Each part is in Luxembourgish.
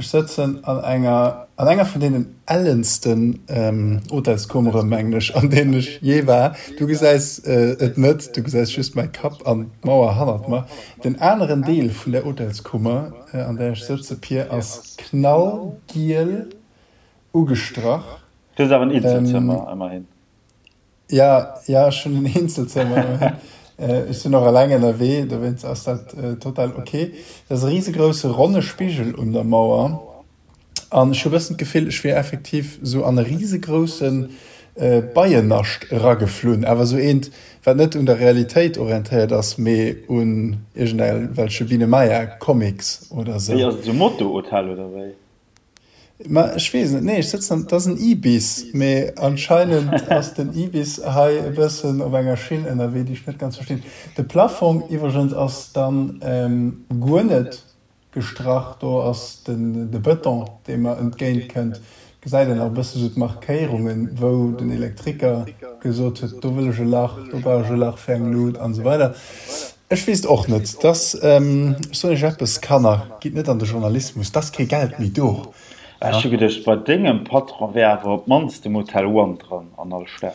Ech sëtzen an enger, an enger vun deenen ellensten Hotelskummere, mengen ech, an deenen ech jee war. Du gesäis et net, du gesäis just mäi Kapp an d'Mauer hannert mer. Den aneren Deel vun där Hotelskummer, an där ech sëtze, Pir, ass knallgiel ugestrach. Du hues awer en Eenzelzëmmer, ëmmerhin. Ja, ja, ech hunn en Eenzelzëmmer. Ech sinn och eleng ënnerwee, dowéinst ass dat total ok. Et ass e risegrousse ronne Spigel un der Mauer an ech hu bëssen d'Gefill, ech wier effektiv sou an e risegrousse Beiennascht erageflunn, awer sou eent, wat net un der Realitéit orientéiert ass, mee un iergendwelche Biene-Maya-Comics oder sou. Wéi, ass et sou Motto-Hotel oder wéi? Ma ech weess net, nee ech sëtzen an, et ass en Ibis, mee anscheinend ass den Ibis hei e bëssen op enger Schinn ënnerwee, déi ech net ganz verstinn. De Plafong iwwregens ass dann guer net gestrach, do ass den de Bëton, dee mer entgéint kënnt, gesäit een nach e bësse sou d'Markéierungen, wou den Elektriker gesot huet, do wëll ech e Lach, do brauch ech e Lach fir eng Lut an esou weider. Ech weess et och net. Dass, ech soen Iech eppes, Kanner, gitt net an de Journalismus, 't ass kee Geld méi do. Ech hu geduecht, bei dengem Patron wär awer op d'mannst de Motel One dran an all Stad.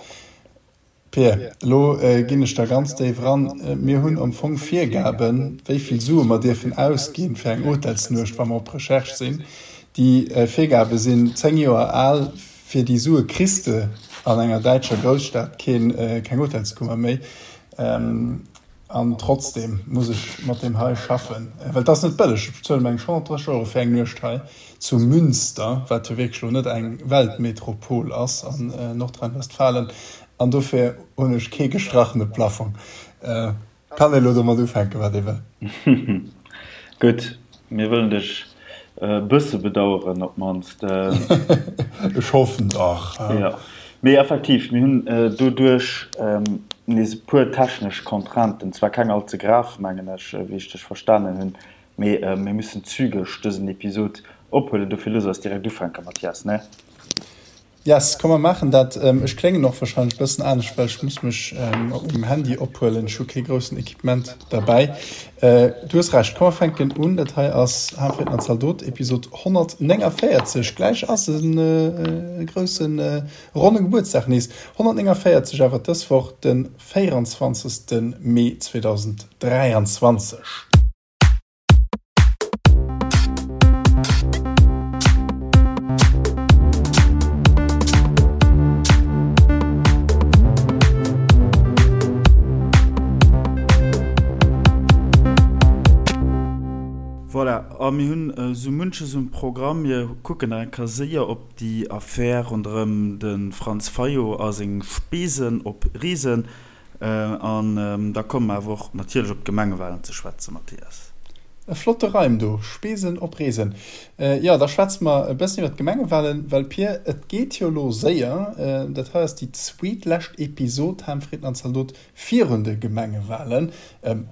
Pir, elo ginn ech da ganz déif eran. Mir hunn am Fong Virgaben, wéi vill Sue mer dierfen ausginn fir eng Hotelsnuecht, wa mer op Recherche sinn. Déi Virgabe sinn 10 Joer al. Fir déi Sue kriss de an enger däitscher Grousstad keng Hotelskummer méi. An trotzdem muss ech mat deem hei schaffen, well et ass net bëlleg. Ech bezuelen meng 130 Euro fir eng Nuecht hei zu Münster, wat jo wierklech elo net eng Weltmetropol ass an Nordrhein-Westfalen. An dofir hunn ech kee gestrachene Plafong. Kann ee lo domat ufänken, wat ee wëll. Gutt, mir wëllen dech e bësse bedaueren op d'mannst. Ech hoffen dach. Jo, mee effektiv, mir hunn doduerch nees e puer technesch Contrainten, zwar keng all ze grav, mengen ech, wéi ech dech verstanen hunn, mee mir müssen zügeg dësen Episod ophuelen. Dofir looss eis direkt ufänken, Mathias, ne? Yes, komm mer maachen dat. Ech kléngen och wahrscheinlech bëssen anescht, well ech muss mech op mengem Handy ophuelen. Ech hu kee groussen Equipement derbäi. Du hues Recht, komm mer fänken un. Dat hei ass Haarfritten an Zaldot, Episod 149. Gläich ass e grousse ronne Gebuertsdag nees. 149 awer dës Woch, de 24. Mee 2023. Voilà, a mir hunn esou munches um Programm. Mir kucken nach eng Kéier séier op déi Affär ronderëm de Franz Fayot a seng Spesen op Reesen. An da komme mer awer och natierlech op d'Gemengewalen ze schwätzen, Mathias. E flotte Reim do, Spesen op Reesen. Jo, da schwätze mer e bëssen iwwer d'Gemengewalen, well Pir, et geet jo elo séier. Dat hei ass déi zweetlescht Episod Ham, Fritten an Zaldot virun de Gemengewalen.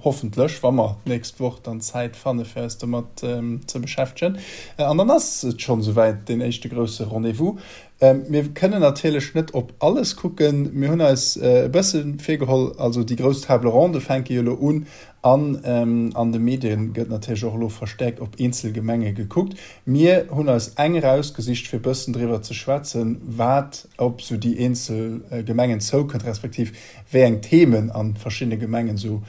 Hoffentlech, wa mer d'nächst Woch dann Zäit fanne fir eis domat ze beschäftegen. An dann ass et schonn esouwäit, deen éischte grousse Rendez-vous. Mir kënnen natierlech net op alles kucken. Mir hunn eis e bësse virgeholl, also déi grouss Table ronde fänke jo elo un an an de Medie gëtt natierlech och elo verstäerkt op eenzel Gemenge gekuckt. Mir hunn eis eng erausgesicht, fir e bëssen driwwer ze schwätzen, wat op esou déi eenzel Gemengen zoukënnt, respektiv wéi eng Themen a verschiddene Gemengen esou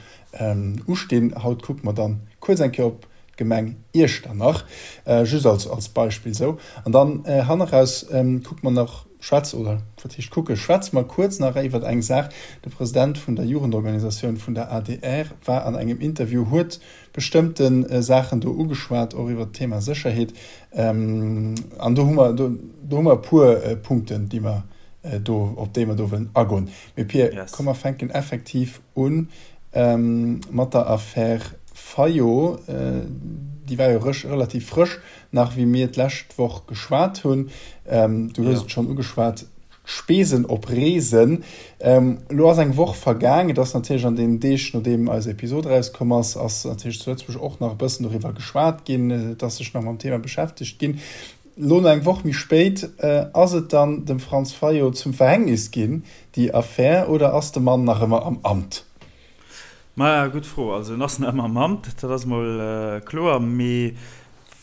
ustinn. Haut kucke mer dann kuerz eng Kéier op d'Gemeng Iechternach, just als als Beispill esou. An dann hanneraus kucke mer nach, schwätze, oder wat heescht kucke, schwätze mer kuerz nach iwwert eng Saach. De President vun der Jugendorganisatioun vun der adr war an engem Interview, huet bestëmmte Saachen do ugeschwat, och iwwert d'Thema Sécherheet. An do hu mer, do hu mer e puer Punkten, déi mer do, op déi mer do wëllen agoen. Mee Pir, komm mer fänken effektiv un mat der Affär Fayot. Déi war jo relativ frësch nach, wéi mir d'lescht Woch geschwat hunn. Du hues et schonn ugeschwat, d'Spesen op Reesen. Elo ass eng Woch vergaang. Et ass natierlech an deenen Deeg, nodeem eis Episod erauskomm ass, ass natierlech zu Lëtzebuerg och nach e bëssen doriwwer geschwat ginn. Et ass sech nach mam Thema beschäftegt ginn. Elo no eng Woch méi spéit, ass et dann dem Franz Fayot zum Verhängnis ginn, déi Affär, oder ass de Mann nach ëmmer am Amt? Maja, gutt Fro. Also en ass nach ëmmer am Amt, dat ass mol kloer. Mee.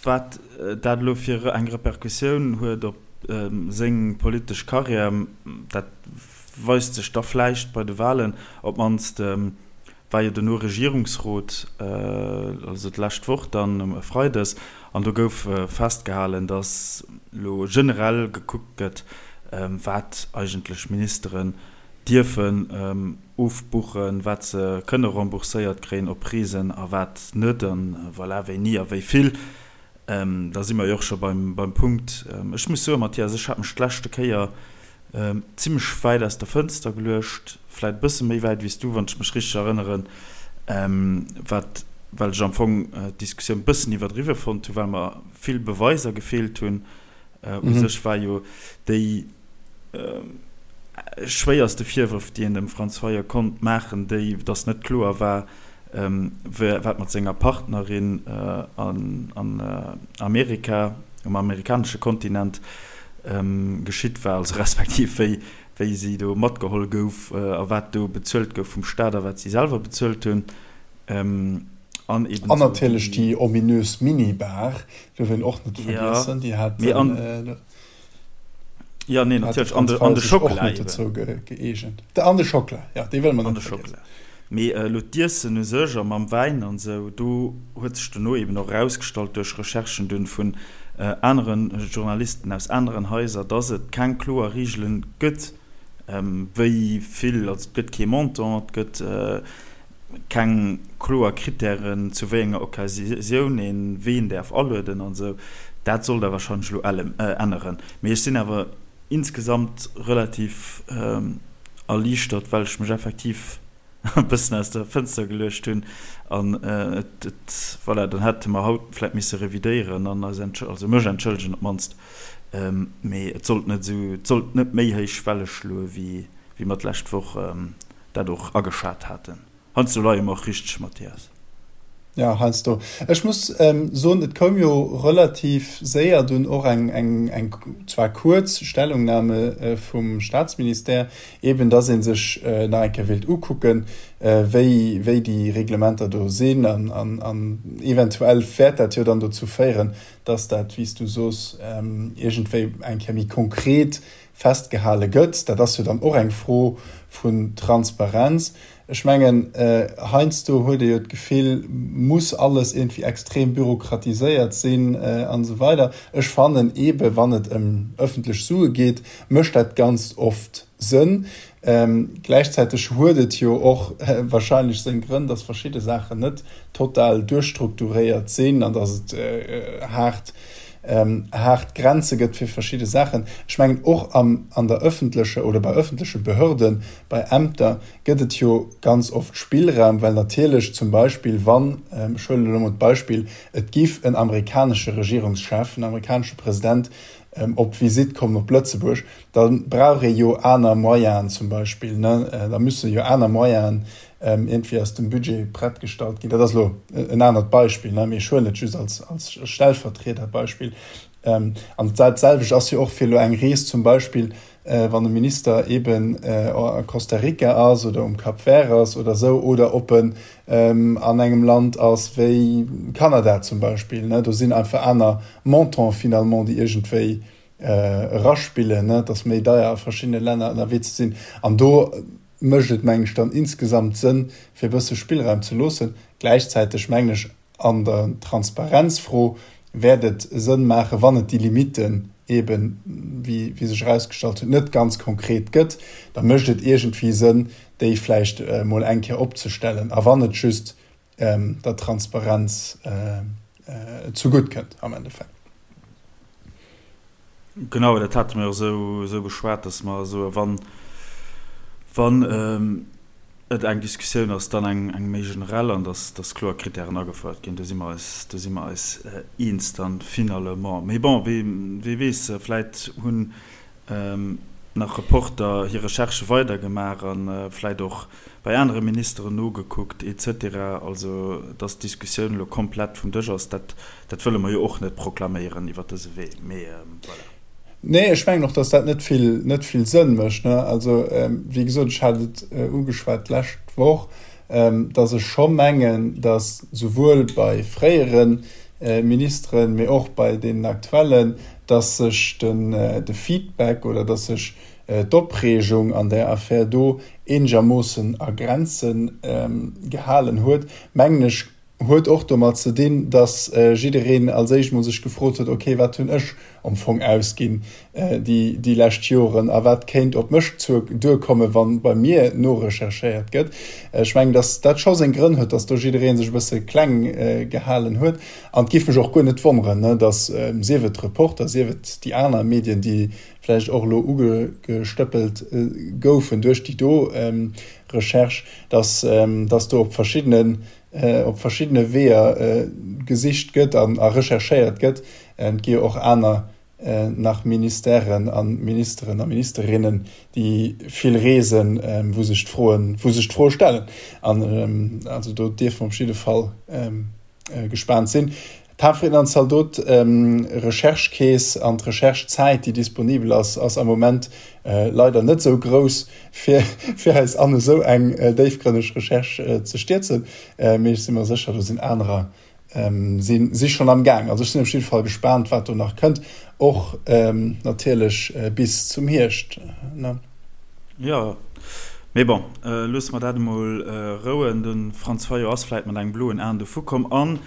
Wat dat elo fir eng Repercussioun huet op seng politesch Karriär, dat weist sech da vläicht bei de Wahlen. Op d'mannst war jo dono Regierungsrot, also d'lescht Woch dann e Freides, an do gouf festgehalen, datt elo generell gekuckt gëtt, wat eigentlech Ministeren dierfen ofbuchen, wat se kënne rembourséiert kréien op Reesen a wat net, an voilà, wéini a wéi vill. Da si mer jo och scho beim Punkt. Ech muss soen, Mathias, ech hat mech d'leschte Kéier zimmlech wäit aus der Fënster geluecht, vläit e bësse méi wäit wéi s du, wann ech mech richteg erënneren, wat, well ech am Fong d'Diskussioun e bëssen iwwerdriwwe fonnt hunn, well mer vill Beweiser gefeelt hunn. U sech war jo déi schwéierste Virwërf, déi een dem Franz Fayot konnt maachen, déi, datt net kloer war, wat mat senger Partnerin an Amerika, um amerikanesche Kontinent geschitt war, also respektiv wéi wéi si do matgeholl gouf a wat do bezuelt gouf vum Staat a wat si selwer bezuelt hunn. An eben An natierlech déi ominös Minibar, duerf een och net vergiessen, déi hat den Jo, nee, natierlech. An de, an de Schockela eben. Dozou gëeegent. An de Schockela, jo, dee wëlle mer net vergiessen. Mee elo d'Iessen u sech a mam Wäin an esou, do huet sech dono eben och erausgestallt duerch Recherchen dunn vun anere Journalisten aus aneren Haiser, dass et keng kloer Reegele gëtt, wéi vill, also et gëtt kee Montant, et gëtt keng kloer Krittären, zu wéi enger Occasioun een ween däerf alueden an esou. Dat soll da wahrscheinlech elo änneren. Mee ech sinn awer insgesamt relativ erliichtert, well ech mech effektiv e bëssen aus der Fënster geluecht hunn an et, et, voilà, dann hätte mer haut vläit misse revidéieren an eis entschël-, also mech entschëllegen op d'mannst. Mee et sollt net esou, et sollt net méi héich Welle schloe wéi, wéi mer d'lescht Woch dat och ageschat haten. Heiansdo leie mer och richteg, Mathias. Ja, heiansdo. Ech muss soen, et koum jo relativ séier dunn och eng, eng, eng zwar kuerz Stellungnahme vum Statsministère, eeben dass ee sech nach eng Kéier wéilt ukucken, wéi, wéi déi Reglementer do sinn. An, an, an eventuell wäert dat jo dann dozou féieren, dass dat, wéi s du soos, iergendwéi eng Kéier méi konkret festgehale gëtt. Dat ass jo dann och eng Fro vun Transparenz. Ech mengen, heiansdo huet ee jo d'Gefill, muss alles iergendwéi extrem bürokratiséiert sinn an esou weider. Ech fannen eebe wann et ëm ëffentlech Sue geet, mécht dat ganz oft Sënn. Gläichzäiteg huet et jo och wahrscheinlech seng Grënn, dass verschidde Saachen net total duerchstrukturéiert sinn an dass et haart haart Grenze gëtt fir verschidde Saachen. Ech mengen, och am, an der öffentlecher oder bei öffentleche Behörden, bei Ämter gëtt et jo ganz oft Spillraum, well natierlech zum Beispill, wann, ech huelen elo emol d'Beispill, et giff en amerikanesche Regierungschef, en amerikanesche President op Visitt kommen op Lëtzebuerg, da brauch ee jo aner Moyenen zum Beispill, ne, da müsse jo aner Moyenen iergendwéi aus dem Budget prett gestallt ginn. Dat ass elo en anert Beispill, ne, mee ech huelen et just als, als Stellvertriederbeispill. An dat selwecht ass jo och fir elo eng Rees zum Beispill, wann e Minister eeben a Costa Rica ass oder um Cap Vert ass oder esou oder ob en an engem Land ass wéi Kanada zum Beispill, ne. Do sinn einfach aner Montants finalement, déi iergendwéi eraspillen, ne. Et ass méi deier a verschiddene Länner ënnerwee ze sinn. An do mécht et, mengen ech, dann insgesamt Sënn, fir e bësse Spillraum ze loossen. Gläichzäiteg mengen ech, an der Transparenzfro wäert et Sënn maachen, wann et déi Limitten eeben, wéi sech erausgestallt huet, net ganz konkret gëtt, da mécht et iergendwéi Sënn, déi vläicht emol eng Kéier opzestellen, a wann et just der Transparenz zegutt kënnt am Endeffekt. Genau, dat hate mir och esou beschwat, dass mer soe wann, wann et eng Diskussioun ass, dann eng, eng méi generell an dass, dass kloer Kritären agefouert ginn. Do si mer eis, do si mer eis eens dann finalement. Mee bon, wee, wee weess, vläit hunn nach Reporter hir Recherchë weidergemaach a vläit och bei anere Ministeren nogekuckt et cetera. Also, dass d'Diskussioun elo komplett vum Dësch ass, dat, dat wëlle mer jo och net proklaméieren iwwert dëse Wee, mee voilà. Nee, ech mengen och, dass dat net vill, net vill Sënn mécht, ne. Also, wéi gesot, ech hat et ugeschwat d'lescht Woch, dass ech scho mengen, dass souwuel bei fréiere. Ministeren, mee och bei deenen aktuellen, dass sech den de Feedback oder dass sech d'Opreegung an där Affär do eenegermoossen a Grenze gehalen huet, mengen ech, huet och domat ze dinn, dass jiddereen als éischt mol sech gefrot huet, ok, wat hunn ech am Fong ausginn déi déi lescht Joren a wat kéint op mech duerkommen, wa bei mir norecherchéiert gëtt. Ech mengen, dass dat scho seng Grënn huet, dass do jidderee sech e bësse kleng gehalen huet. An et géif mech och guer net wonneren, dass, sief et d'Reporter, sief et déi aner Medien, déi vläicht och elo ugestëppelt goufen duerch déi do Recherche, dass dass do op verschiddenen op verschiddene Weeër gesicht gëtt an a recherchéiert gëtt. Et gi jo och aner nach Ministèren a Ministeren a Ministerinnen, déi vill reesen, wou sech d'Froen, wou sech d'Froe stellen. An also do dierfe mer op jidde Fall gespaant sinn. D'Hafrieden an Zaldot Recherche-Keess an d'Recherche-Zäit, déi disponibel ass, ass am Moment leider net esou grouss, fir fir eis an esou eng déifgrënneg Recherche ze stierzen. Mee ech si mer sécher, do sinn anerer si si schonn am Gaang. Also ech sinn op jidde Fall gespaant, wat do nach kënnt, och natierlech bis zum Hierscht. Jo, mee bon, loosse mer dat emol rouen. De Franz Fayot ass vläit mat engem bloen Aen dovu komm. An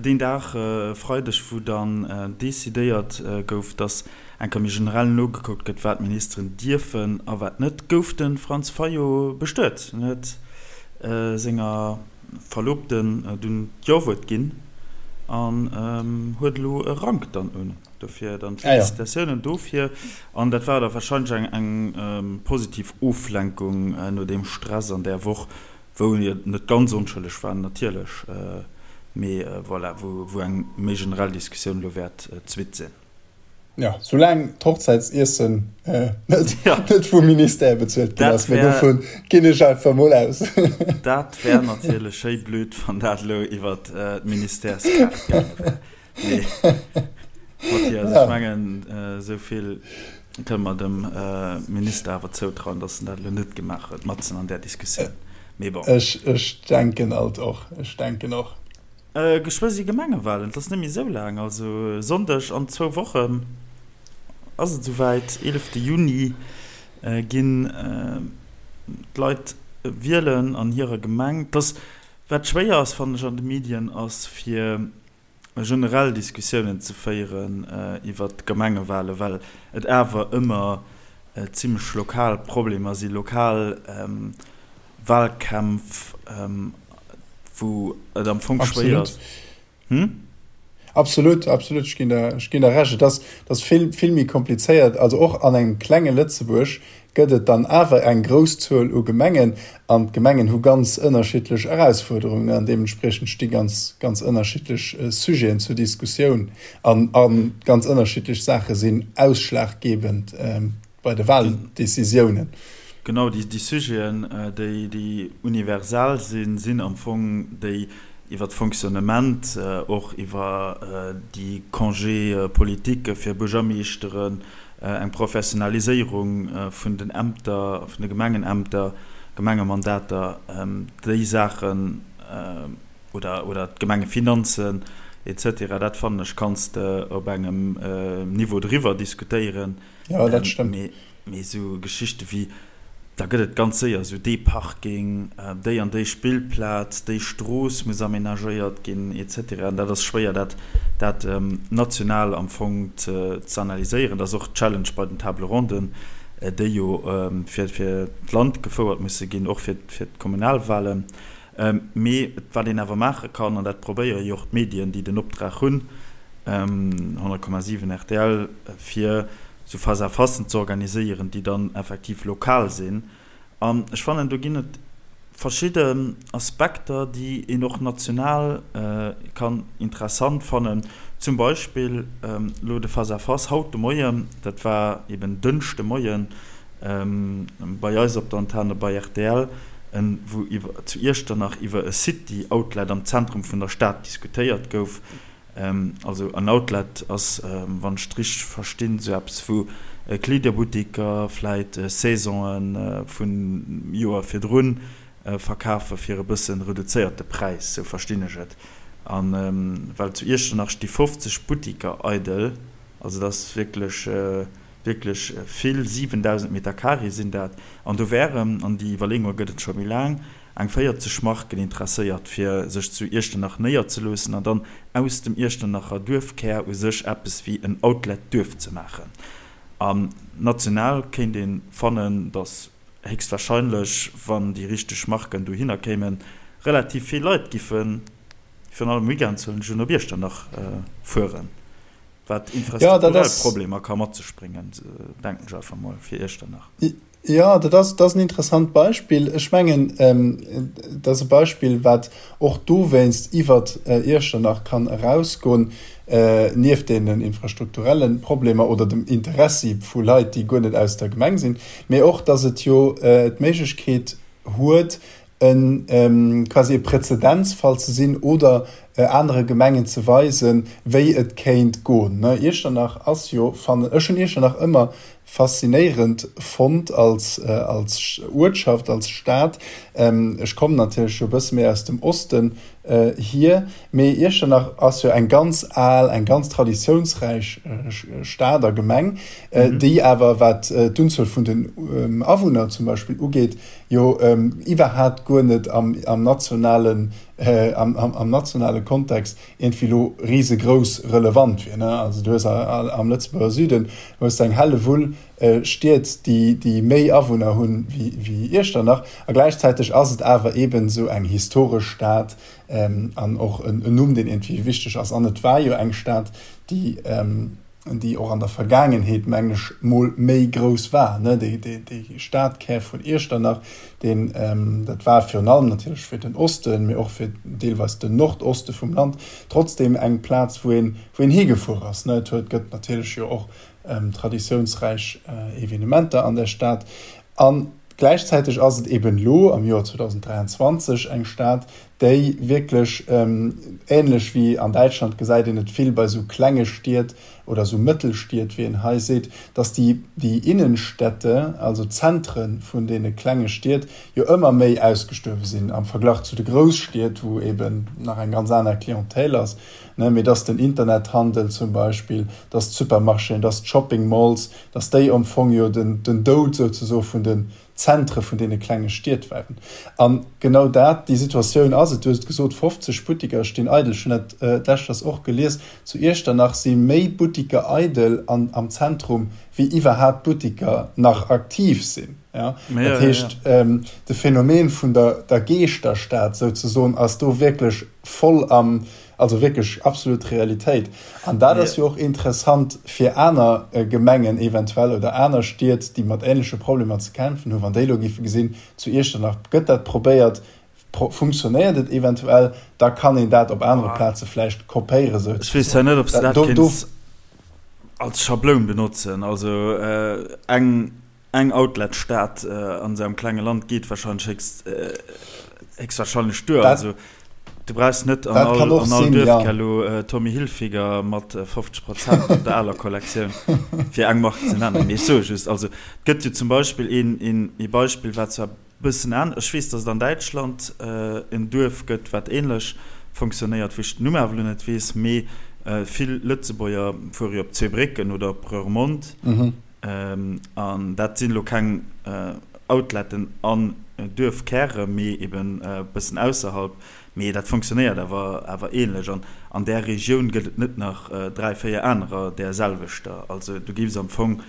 deen Dag, e Freideg, wou dann decidéiert gouf, datt eng Kéier méi generell nogekuckt gëtt, wat d'Ministeren dierfen a wat net, gouf de Franz Fayot bestuet. En huet senger Verlobten dunn d'Jo-Wuert ginn an huet elo e Rank dann un. Dofir dann d'Felicitatiounen dofir. An dat war da warscheinlech eng positiv Oflenkung no deem Stress an där Woch, wou jo net ganz onschëlleg war natierlech, mee voilà, wou eng méi generell Diskussioun elo wäert d'Suite sinn. Jo, soulaang d'Hochzäitsiessen net vum Ministère bezuelt ginn ass, mee dovun ginn ech einfach mol aus. Dat wär natierlech schéi blöd, wann dat elo iwwer d'Ministèrskaart gaange wär. Mee Mathias, ech mengen, esou vill kënne mer dem Minister awer zoutrauen, datt en dat elo net gemaach huet, matzen an där Diskussioun. Mee bon. Ech denken alt och. Ech denken och. Geschwë si Gemengewalen, et ass net méi esou laang, also e Sonndeg an zwou Wochen ass et esouwäit, 11 Juni ginn d'Leit wielen an hirer Gemeng. Et ass, wat schwéier ass, fannen ech an de Medien, ass fir generell Diskussiounen ze féieren iwwert d'Gemengewalen, well et awer ëmmer zimlech lokal Problemer sinn, lokal Walkämpf, wou et am Fong schwéier ass. Hm? Absolut, absolut, ech ginn der, ech ginn der Recht. Et ass, et ass vill, vill méi komplizéiert. Also och an engem klenge Lëtzebuerg gëtt et dann awer eng grouss Zuel u Gemengen an d'Gemengen hu ganz ënnerschiddlech Erausfuerderungen an deementspriechend sti ganz, ganz ënnerschiddlech Sujeten zur Diskussioun an a ganz ënnerschiddlech Saache sinn ausschlaggebend bei de Wahldecisiounen. Genau, déi Sujeten, déi universell sinn, sinn am Fong déi iwwer d'Fonctionnement, och iwwer déi Congés politiques fir Buergermeeschteren, eng Professionaliséierung vun den Ämter, vun de Gemengenämter, Gemengemandater, déi Saachen, oder, oder d'Gemengefinanzen et cetera, dat fannen ech kanns de op engem Niveau driwwer diskutéieren. Jo, dat stëmmt. Mee, mee esou Geschichte wéi, da gëtt et ganz séier esou dee Parking, déi an déi Spillplaz, déi Strooss muss amenagéiert ginn, et cetera. An dat ass schwéier, dat, dat national am Fong ze, ze analyséieren. Dat ass och d'Challenge bei den Table ronden, déi jo fir, fir d'Land gefouert musse ginn, och fir, fir d'Kommunalwahlen. Mee wat een awer maache kann, an dat probéiere jo och d'Medien, déi den Optrag hunn, 100,7 rtl, fir esou Face-à-facen ze organiséieren, déi dann effektiv lokal sinn. An ech fannen, do ginn et verschidden Aspekter, déi een och national kann interessant fannen. Zum Beispill elo de Face-à-face haut de Moien, dat war eben Dënschde Moien, bei eis op der Antenne bei rtl, wou iwwer zu Iechternach iwwer e City Outlet am Zentrum vun der Stad diskutéiert gouf. Also en Outlet ass, wann ech et richteg verstinn, esou eppes wou Kleederbuttiker vläit Saisonen vun Joer virdrun verkafe fir e bësse reduzéierte Präis, sou verstinn ech et. A well zu Iechternach sti 50 Buttiker eidel, also dat ass wierklech, wierklech vill, 7.000 Meter Carré sinn dat. An do wären, an déi Iwwerleeunge gëtt et scho méi laang, eng 40 Marken interesséiert, fir sech zu Iechternach néierzeloossen an dann aus dem Iechternacher Duerfkär u sech eppes wéi en Outlet-Duerf ze maachen. An national kéint ee fannen, datt héchstwahrscheinlech, wann déi richteg Marken dohinner kéimen, relativ vill Leit giffen, virun allem weekends huelen ech un, op Iechternach fueren, wat infrastrukturell Problemer ka mat sech bréngen, denken ech einfach mol, fir Iechternach. Jo, dat ass, dat ass en interessant Beispill. Ech mengen, dat ass e Beispill, wat och dowéinst iwwer Iechternach kann erausgoen, nieft deenen infrastrukturelle Problemer oder dem Interessi vu Leit, déi guer net aus der Gemeng sinn, mee och, dass et jo d'Méiglechkeet huet, e quasi e Präzedenzfall ze sinn oder anere Gemengen ze weisen, wéi et kéint goen. Iechternach ass jo, fannen ech, hunn Iechternach ëmmer faszinéierend fonnt als als Uertschaft, als Stad. Ech kommen natierlech jo e bësse méi aus dem Osten hier, mee Iechternach ass jo eng ganz al, eng ganz traditiounsräich Stad a Gemeng, déi awer, wat d'Unzuel vun den Awunner zum Beispill ugeet, jo iwwerhaapt guer net am am nationalen am am nationale Kontext iergendwéi elo risegrouss relevant wier, ne. Also du hues am Lëtzebuerger Süden hues de eng Hellewull Stied, déi déi méi Awunner hunn wéi wéi Iechternach a gläichzäiteg ass et awer eeben esou eng historesch Stad an och en Numm, deen iergendwéi wichteg ass. An et war jo eng Stad, déi déi och an der Vergaangenheet, mengen ech, mol méi grouss war, ne, dee, dee, dee Stadkär vun Iechternach, deen, dat war virun allem natierlech fir den Osten, mee och fir deelweis den Nordoste vum Land, trotzdem eng Plaz, wou een, wou een higefuer ass, ne. Et huet, gëtt natierlech jo och traditiounsräich Evenementer an der Stad. A gläichzäiteg ass et eben elo am Joer 2023 eng Stad, déi wierklech, änlech wéi an Däitschland gesäit een et vill bei esou klenge Stied oder esou Mëttelstied, wéi een hei seet, datt déi, déi Innenstädte, also d'Zentre vun deene klenge Stied, jo ëmmer méi ausgestuerwe sinn am Verglach zu de Grousstied, wou eben nach eng ganz aner Clientèle ass, ne, mee datt den Internethandel zum Beispill, datt d'Supermarchéen, datt d'Shopping Malls, datt déi am Fong jo den, den Doud souzesoe vun den Zentre vun deene klenge Stied waren. A genau dat, déi Situatioun ass et. Du hues et gesot, 50 Buttiker stinn eidel. Ech hunn dat d'lescht och gelies, zu Iechternach si méi Buttiker eidel an am Zentrum, wéi iwwerhaapt Buttiker nach aktiv sinn. Dat heescht, de Phänomen vun der der Geeschterstad souzesoen ass do wierklech voll am, Also wierklech absolut Realitéit. An dat ass jo och interessant fir aner Gemengen eventuell oder aner Stied, déi mat ähnleche Problemer ze kämpfen hunn, wann déi elo géife gesinn, zu Iechternach gëtt dat probéiert, funktionéiert et eventuell, da kann een dat op anere Plaze vläicht kopéieren souzesoen. Ech weess zwar net, ob s de dat kéints als Schabloun benotzen. Also eng Eng Outlet-Stad an esou engem klenge Land geet wahrscheinlech héchst, héchstwahrscheinlech duer. Also du brauchs net an all, an all Duerfkär elo Tommy Hilfiger mat 50 Prozent op der aler Kollektioun, fir eng Mark ze nennen. Mee ech soe just, also et gëtt jo zum Beispill een, een, ee Beispill, wat zwar e bëssen anescht, ech weess, datt et an Däitschland en Duerf gëtt, wat änlech funktionéiert, wou ech den Numm awer elo net weess, mee vill Lëtzebuerger fuere jo op Zweebrécken oder op Rörmond. An dat sinn elo keng Outletten an Duerfkäre, mee eben e bëssen ausserhalb. Mee dat fonctionnéiert awer awer ähnlech. An an där Regioun gëtt et net nach 3, 4 anerer där selwechter. Also du géifs am Fong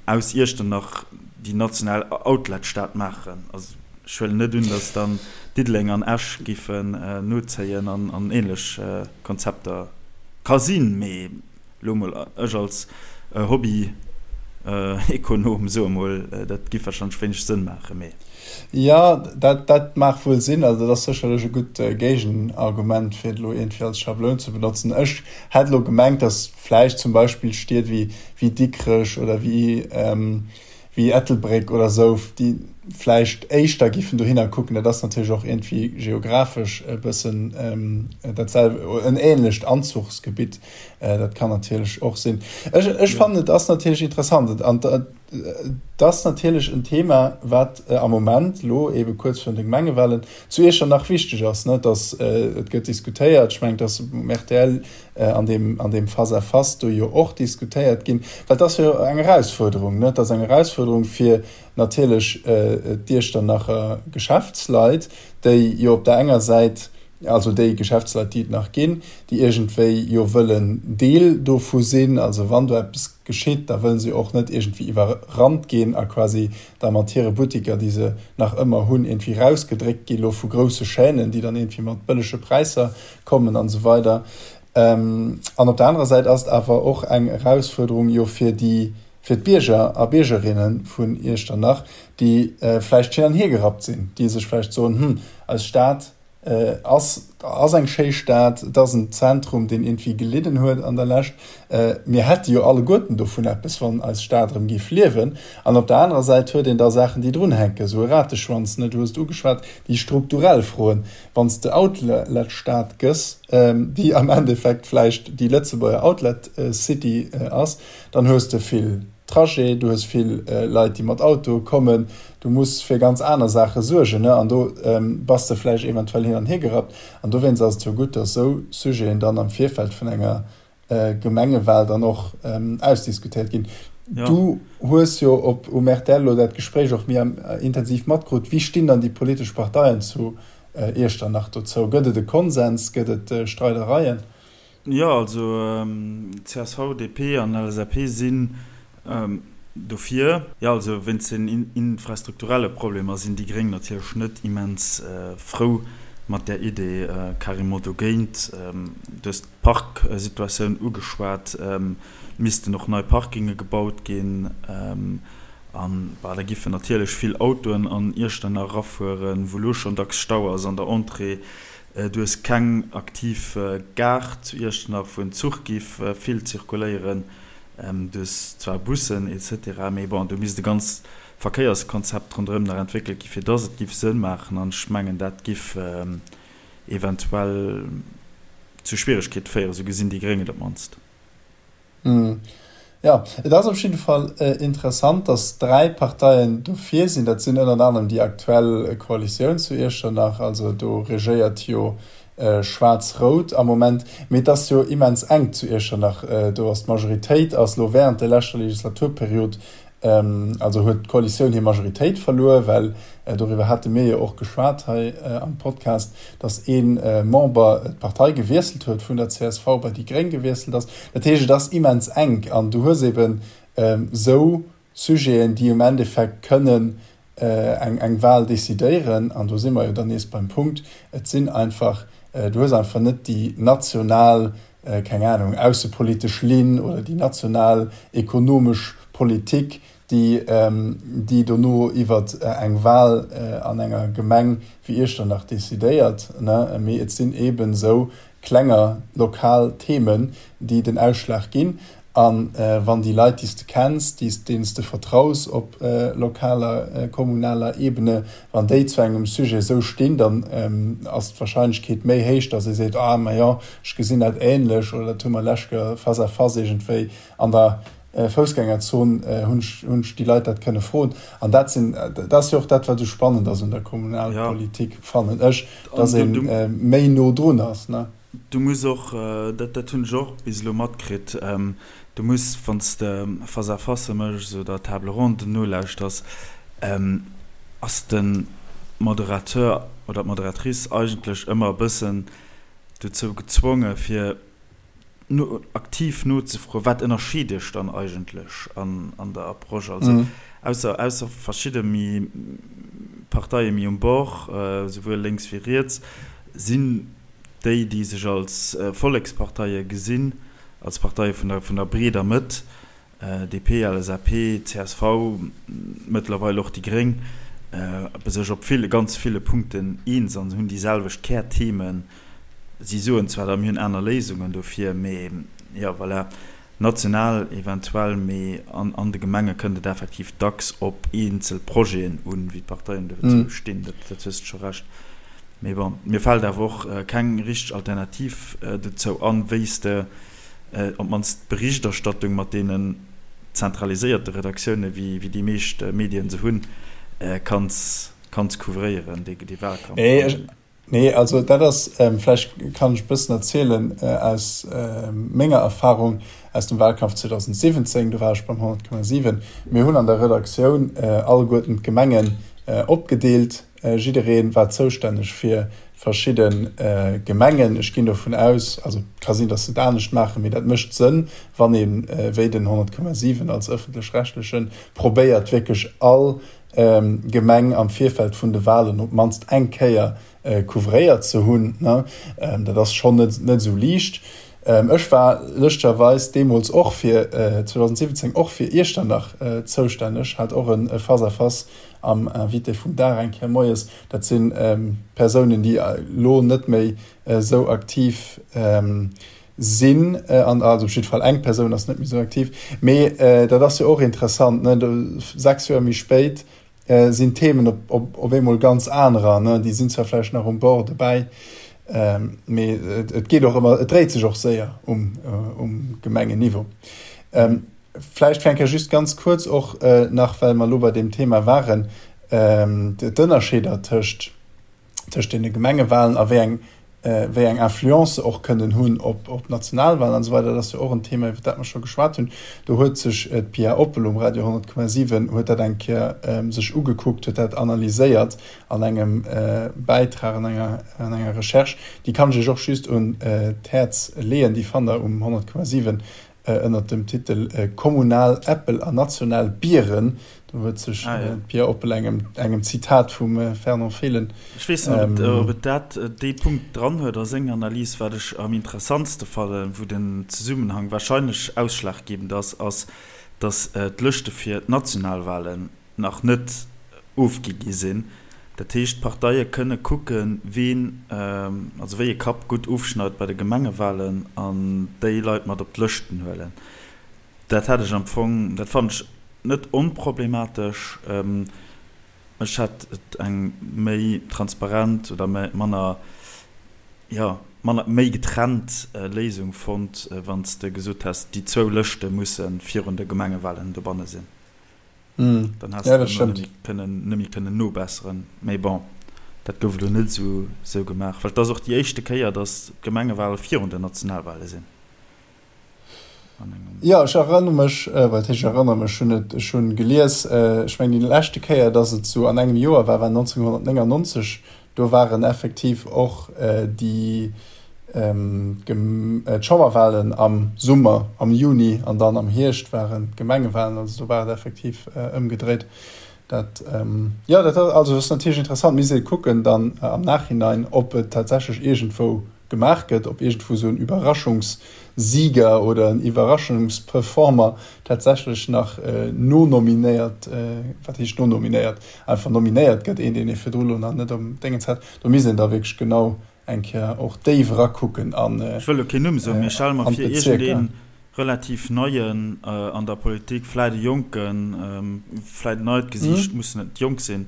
aus Iechternach déi national Outlet-Stad maachen. Also ech huelen net un, datt dann Diddeleng an Esch géifen nozéien an ähnlech Konzepter. Ka sinn, mee Lo mol, ech als Hobby-Ekonom soe mol, dat giff wahrscheinlech wéineg Sënn maachen, mee. Jo, dat, dat mag wuel sinn. Also dat ass sécherlech e gutt Géigenargument, fir et elo iergendwéi als Schabloun ze benotzen. Ech hätt elo gemengt, datt vläicht zum Beispill Stied wéi, wéi Dikrech oder wéi, wéi Ettelbréck oder esou, déi. vläicht éischter giffen dohinner kucken. Dat ass natierlech och iergendwéi geographesch e bëssen dat selw en ähnlecht Anzuchsgebitt. Dat kann natierlech och sinn. Ech, ech fannen, et ass natierlech interessant an et ass natierlech en Thema, wat am Moment elo eebe kuerz virun de Gemengewahlen zu Iechternach wichteg ass, ne, dass et gëtt diskutéiert. Ech mengen, et ass um rtl an deem, an deem Face-à-face do jo och diskutéiert ginn, well et ass jo eng Erausfuerderung, ne, et ass eng Erausfuerderung fir natierlech d'Iechternacher Geschäftsleit, déi jo op der enger Säit, also déi Geschäftsleit, déi et nach ginn, déi iergendwéi jo wëllen Deel dovu sinn, also wann do eppes geschitt, da wëlle se och net iergendwéi iwwerrannt ginn a quasi da mat hire Buttiker, déi se nach ëmmer hunn, iergendwéi rausgedréckt gi lo vu grousse Chaînen, déi dann iergendwéi mat bëllege Präisser kommen an esou weider. An op der anerer Säit ass et awer och eng Erausfuerderung jo fir déi, fir d'Bierger a Biergerinne vun Iechternach, déi vläicht hin an hier gerappt sinn, déi sech vläicht soen, Hm, eis Stad ass, ass eng schéi Stad, et ass en Zentrum, deen iergendwéi gelidden huet an der Lescht, mir hätte jo alleguerten dovun eppes, wann eis Stad erëm géif liewen. An op der anerer Säit huet een da Saachen, déi drunhänken, esou e Rateschwanz, ne, du hues et ugeschwat, déi strukturell Froen, Wann s de Outlet-Stad gëss, déi am Endeffekt vläicht déi Lëtzebuerger Outlet-City ass, Dann hues de vill Trajet, du hues vill Leit, déi mat Autoe kommen, du muss fir ganz aner Saache suergen, ne? An do bass de vläicht eventuell hin an hier gerappt. An dowéinst ass et jo gutt, datt esou Sujeten dann am Virfeld vun enger Gemengewal dann och ausdiskutéiert ginn. Du hues jo op um rtl elo dat Gespréich och méi intensiv matkrut. Wéi stinn dann déi politesch Parteien zu Iechternach dozou? Gëtt et e Konsens? Gëtt et Streidereien? Jo, also csv, DP an LSAP sinn dofir. Jo, also wéinst den infrastrukturelle Problemer sinn déi Gréng natierlech net immens frou mat där Idee, carrément dogéint. Du hues d'Parksituatioun ugeschwat, et missten och nei Parkinge gebaut ginn an da giffen natierlech vill Autoen an Iechternach erafueren, wou elo schonn dacks Stau ass an der Entrée. Du hues keng aktiv Gare zu Iechternach, wou en Zuch giff vill zirkuléieren. Du hues zwar Bussen etc. Mee bon, do misst e ganzt Verkéierskonzept ronderëm nach entwéckelt gi fir dass et giff Sënn maachen. An ech mengen, dat giff eventuell zu Schwieregkeete féieren, esou gesinn déi Gréng et op d'mannst. Jo, et ass op jidde Fall interessant, datt 3 Parteien dofir sinn. Dat sinn ënnert anerem déi aktuell Koalitioun zu Iechternach, also do regéiert jo Schwaarz-Rout am Moment. Mee et ass jo immens enk zu Iechternach. Do ass d'Majoritéit ass elo wärend der leschter Legislaturperiod Also huet d'Koalitioun hir Majoritéit verluer, well, doriwwer hate mir jo och geschwat hei am Podcast, datt ee Member d'Partei gewiesselt huet, vun der csv bei déi Gréng gewiesselt ass. Dat heescht, et ass immens enk an du hues eben esou Sujeten, déi um Endeffekt kënnen eng Wahl decidéieren. An do si mer jo dann nees beim Punkt, et sinn einfach, du hues einfach net déi national keng Ahnung, aussepolitesch Linn oder déi national ekonomesch Politik, déi, déi dono iwwer eng Wahl an enger Gemeng wéi Iechternach decidéiert, ne, mee et sinn eeben esou klenger lokal Themen, déi den Ausschlag ginn. A wann déi Leit, déi s de kenns, déi s, deenen s de vertraus op lokaler, kommunaler Ebene, wann déi zu engem Sujet esou stinn, dann ass d'Wahrscheinlechkeet méi héich, datt ee seet, ah majo, ech gesinn dat ähnlech oder dat hu mer lescht Joer face à face iergendwéi an der Foussgängerzon hunn ech, hunn ech déi Leit dat kënne froen. An dat sinn, dat ass jo och dat, wat esou spannend ass un der Kommunalpolitik, fannen ech, datt ee méi no drun ass, ne? Du muss och, dat dat hunn ech och bis elo matkritt, du muss, wann s de Face-à-facë méchs oder Table ronden nolauschters, ass de Moderateur oder d'Moderatrice eigentlech ëmmer e bëssen dozou gezwonge fir no aktiv nozefroen, wat ënnerscheet iech dann eigentlech an an der Approche. Also ausser ausser verschidde méi Parteie méi um Bord, souwuel lénks wéi riets, sinn déi, déi sech als Volleksparteie gesinn, als Parteie vun der, vun der breeder Mëtt, DP, LSAP, csv, mëttlerweil och déi Gréng, sech op ville, ganz ville Punkten eens an hunn déi selwecht Kärthemen. Si soen zwar da, mir hunn aner Léisungen dofir, mee jo, voilà. National eventuell, mee an de Gemenge kënnt et effektiv dacks op eenzel Projeten un, wéi d'Parteien dozou stinn. Dat hues de scho Recht. Mee bon, mir fält awer och keng richteg Alternativ dozou an, wéi s de op d'mannst d'Berichterstattung mat deenen zentraliséierte Redaktioune wéi déi meescht Medien se hunn, kanns couvréieren, dee Wahlkampf. Nee, also dat ass, vläicht kann ech e bëssen erzielen aus menger Erfahrung aus dem Wahlkampf 2017, do war ech beim 100,7. Mir hunn an der Redaktioun alleguerten d'Gemengen opgedeelt. Jidderee war zoustänneg fir verschidde Gemengen. Ech ginn dovun aus, also et ka sinn, datt se et anescht maachen, mee dat mécht Sënn, wann ee wéi den 100,7 als ëffentlech-rechtlechen probéiert wierklech all Gemeng am Virfeld vun de Wahlen op d'mannst eng Kéier couvréiert ze hunn. Dat ass schonn net esou liicht. Ech war lëschterweis deemools och fir 2017 och fir Iechternach zoustänneg, hat och e Face-à-face am Invité vum Dag eng Kéier moies. Dat si Persounen, déi elo net méi esou aktiv sinn, an also op jidde Fall eng Persoun ass net méi esou aktiv, mee dat ass jo och interessant, ne, do 6 Joer méi spéit sinn d'Themen op, op, op eemol ganz anerer, ne, déi sinn zwar vläicht nach um Bord dobäi, mee et geet och ëmmer, et dréit sech och séier um, um Gemengenniveau. Vläicht fir eng Kéier just ganz kuerz och nach, well mer elo bei deem Thema waren, d'Ënnerscheeder tëscht, tëscht deene Gemengewahlen a wéi eng, wéi eng Influence se och kënnen hunn op, op d'Nationalwahlen an esou weider. Dat ass jo och en Thema, iwwer dat mer scho geschwat hunn. Do huet sech d'Pia Oppel um Radio 100,7 huet dat eng Kéier sech ugekuckt, huet dat analyséiert an engem Bäitrag, an enger, an enger Recherche. Déi kann ech Iech och just un d'Häerz leeën. Déi fannt Der um 100,7 Ënnert dem Titel Kommunal Äppel a national Bieren, do huet sech d'Pia Oppel engem Zitat vum Fernand Fehlen. Ech weess net, ob et dat dee Punkt dran huet a senger Analys. Wat ech am interessantste fannen, wou den Zesummenhang warscheinlech ausschlaggebend ass, ass, datt d'Lëschte fir d'Nationalwahlen nach net ofgi gi sinn. Dat heescht, d'Parteie kënne kucken, ween, also wéi e Kapp gutt ofschneit bei de Gemengewahlen an déi Leit mat op d'Lëschten huelen. Dat hätt ech am Fong, dat fannen ech net onproblematesch. Ech hätt et eng méi transparent oder manner, jo, manner, méi getrennt Léisung fonnt, wann s de gesot häss, déi zwou Lëschte musse virun de Gemengewahlen dobanne sinn. Dann häss de elo net méi kënnen nobesseren. Mee bon, dat gouf elo net esou gemaach, well et ass och déi éischte Kéier, datt d'Gemengewale virun den Nationalwale sinn. Jo, ech erënnere mech, wat heescht ech erënnere mech, ech hunn et, ech hunn gelies, ech mengen déi leschte Kéier, datt et esou an engem Joer war, war 1999. Do waren effektiv och déi d'Chamberwahlen am Summer, am Juni, an dann am Hierscht waren d'Gemengewahlen. Also do war et effektiv ëmgedréit. Dat, jo, dat also ass natierlech interessant. Misst ee kucken dann am Nachhinein, ob et tatsächlech iergendwou gemaach gëtt, ob iergendwou esou en Überraschungssieger oder en Iwwerraschungsperformer tatsächlech nach nonominéiert, wat heescht nonominéiert, einfach nominéiert gëtt, een deen ee virdru lo nach net um Déngens hat. Do misst een da wierklech genau eng Kéier och déif erakucken an Ech wëll elo keen Numm soen, mee stelle mer vir, iergendee relativ Neien an der Politik, vläit e Jonken, vläit en neit Gesiicht, muss net jonk sinn,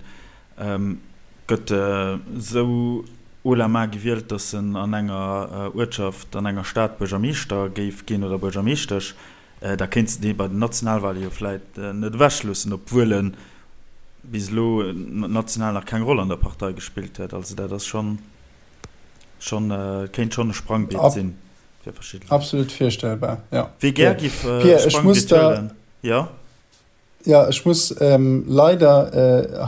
Gëtt esou haut la main gewielt, datt en an enger Uertschaft, an enger Stad Buergermeeschter géif ginn oder Buergermeeschtesch, da kéints de dee bei den Nationalwale jo vläit net ewechloossen, obwuel e bis elo national nach keng Roll an der Partei gespillt huet. Also dat ass schonn, schonn, kéint schonn e Sprangbiet sinn fir verschidde Leit. Absolut virstellbar, jo. Wie gär giff e Sprangbiet huelen, jo? Jo, ech muss leider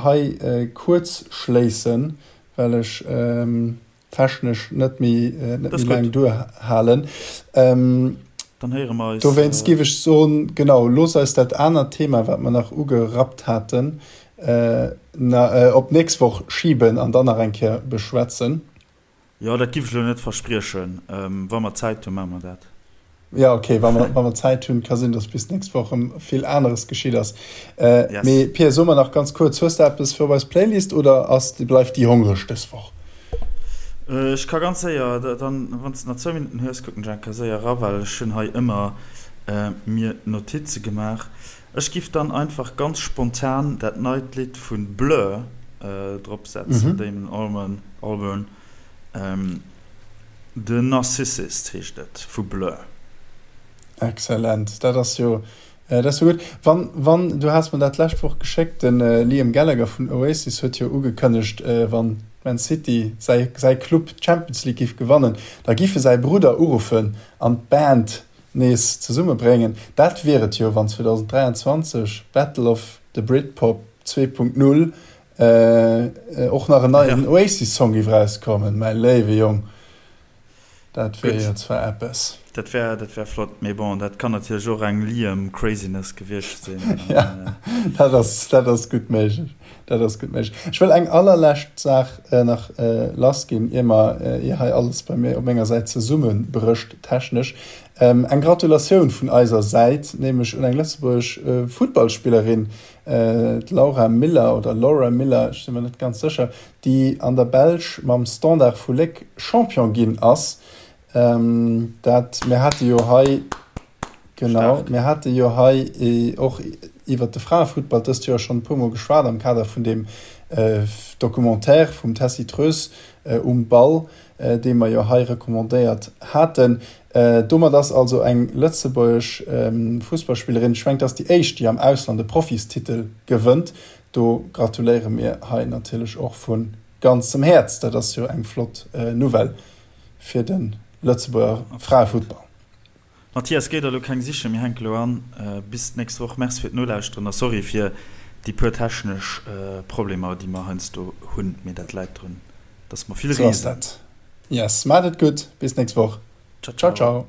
hei kuerz schléissen, well ech technesch net méi laang duerhalen. Dann héiere mer eis. Dowéinst géif ech soen, genau, looss eis dat anert Thema, wat mer nach ugerappt haten, op d'nächst Woch schiben an dann nach eng Kéier beschwätzen. Jo, dat giff ech elo net verspriechen. Wa mer Zäit hunn, maache mer dat. Jo, ok, wa mer, wa mer Zäit hunn. Ka sinn, datt bis d'nächst Woch erëm vill aneres geschitt ass. Yes. Mee Pia, so mer nach ganz kuerz, hues de eppes fir op eis Playlist oder ass, bleift déi hongreg dës Woch? Ech ka ganz séier, dann, wann s de nach zwou Minutten hues, kucken ech eng Kéier séier era, well ech hunn hei ëmmer. Mir Notize gemaach. Ech giff dann einfach ganz spontan dat neit Lidd vun Blur drop setzen, Damon Albarn, Albarn, The Narcissist heescht et vu Blur. Excellent, dat ass jo, dat ass jo gutt. Wann, wann, du has mer dat d'lescht Woch geschéckt, de Liam Gallagher vun Oasis huet jo ugekënnegt, wann Man City, säi, säi Club, d'Champions League giff gewannen, da giff e säi Brudder uruffen an d'Band nees zesummebréngen. Dat wier et jo, wann 2023 Battle of the Britpop 2.0 och nach en neien Oasis-Song géif erauskommen. Mäi léiwe Jong, dat wier jo zwar eppes. Dat wär, dat wär flott, mee bon, dat kann natierlech och eng Liam Craziness gewiescht sinn. Ja, dat ass, dat ass gutt méiglech. Dat ass gutt méiglech. Ech wëll eng allerlescht Saach nach lassginn, ier mer, ier hei alles bei mir op menger Säit zesummebrécht technesch. Eng Gratulatioun vun eiser Säit, nämlech un eng lëtzebuergesch Futtballspillerin, d'Laura Miller oder Laura Miller, ech si mer net ganz sécher, déi an der Belsch mam Standard vu Léck Champion ginn ass. Dat, mir hate jo hei, genau, mir hate jo hei och iwwert de Fraefuttball dëst Joer schonn e puermol geschwat am Kader vun deem Documentaire vum Tessy Treus Um Ball, dee mer jo hei recommandéiert haten. Domat ass also eng lëtzebuergesch Fussballspillerin, ech mengen, et ass déi éischt, déi am Ausland e Profistitel gewënnt. Do gratuléiere mir hei natierlech och vu ganzem Häerz. Dat ass jo eng flott Nouvelle fir de Lëtzebuerger Fraefuttball. Mathias, géi der elo keng sichen, mir hänke elo an. Bis d'nächst Woch. Merci fir d'Nolauschteren a sorry fir déi puer technesch Problemer, déi mer heiansdo hunn, mee dat läit drun, dass mer vill reesen. Sou ass dat. Yes, maacht et gutt, bis d'nächst Woch. Ciao, ciao.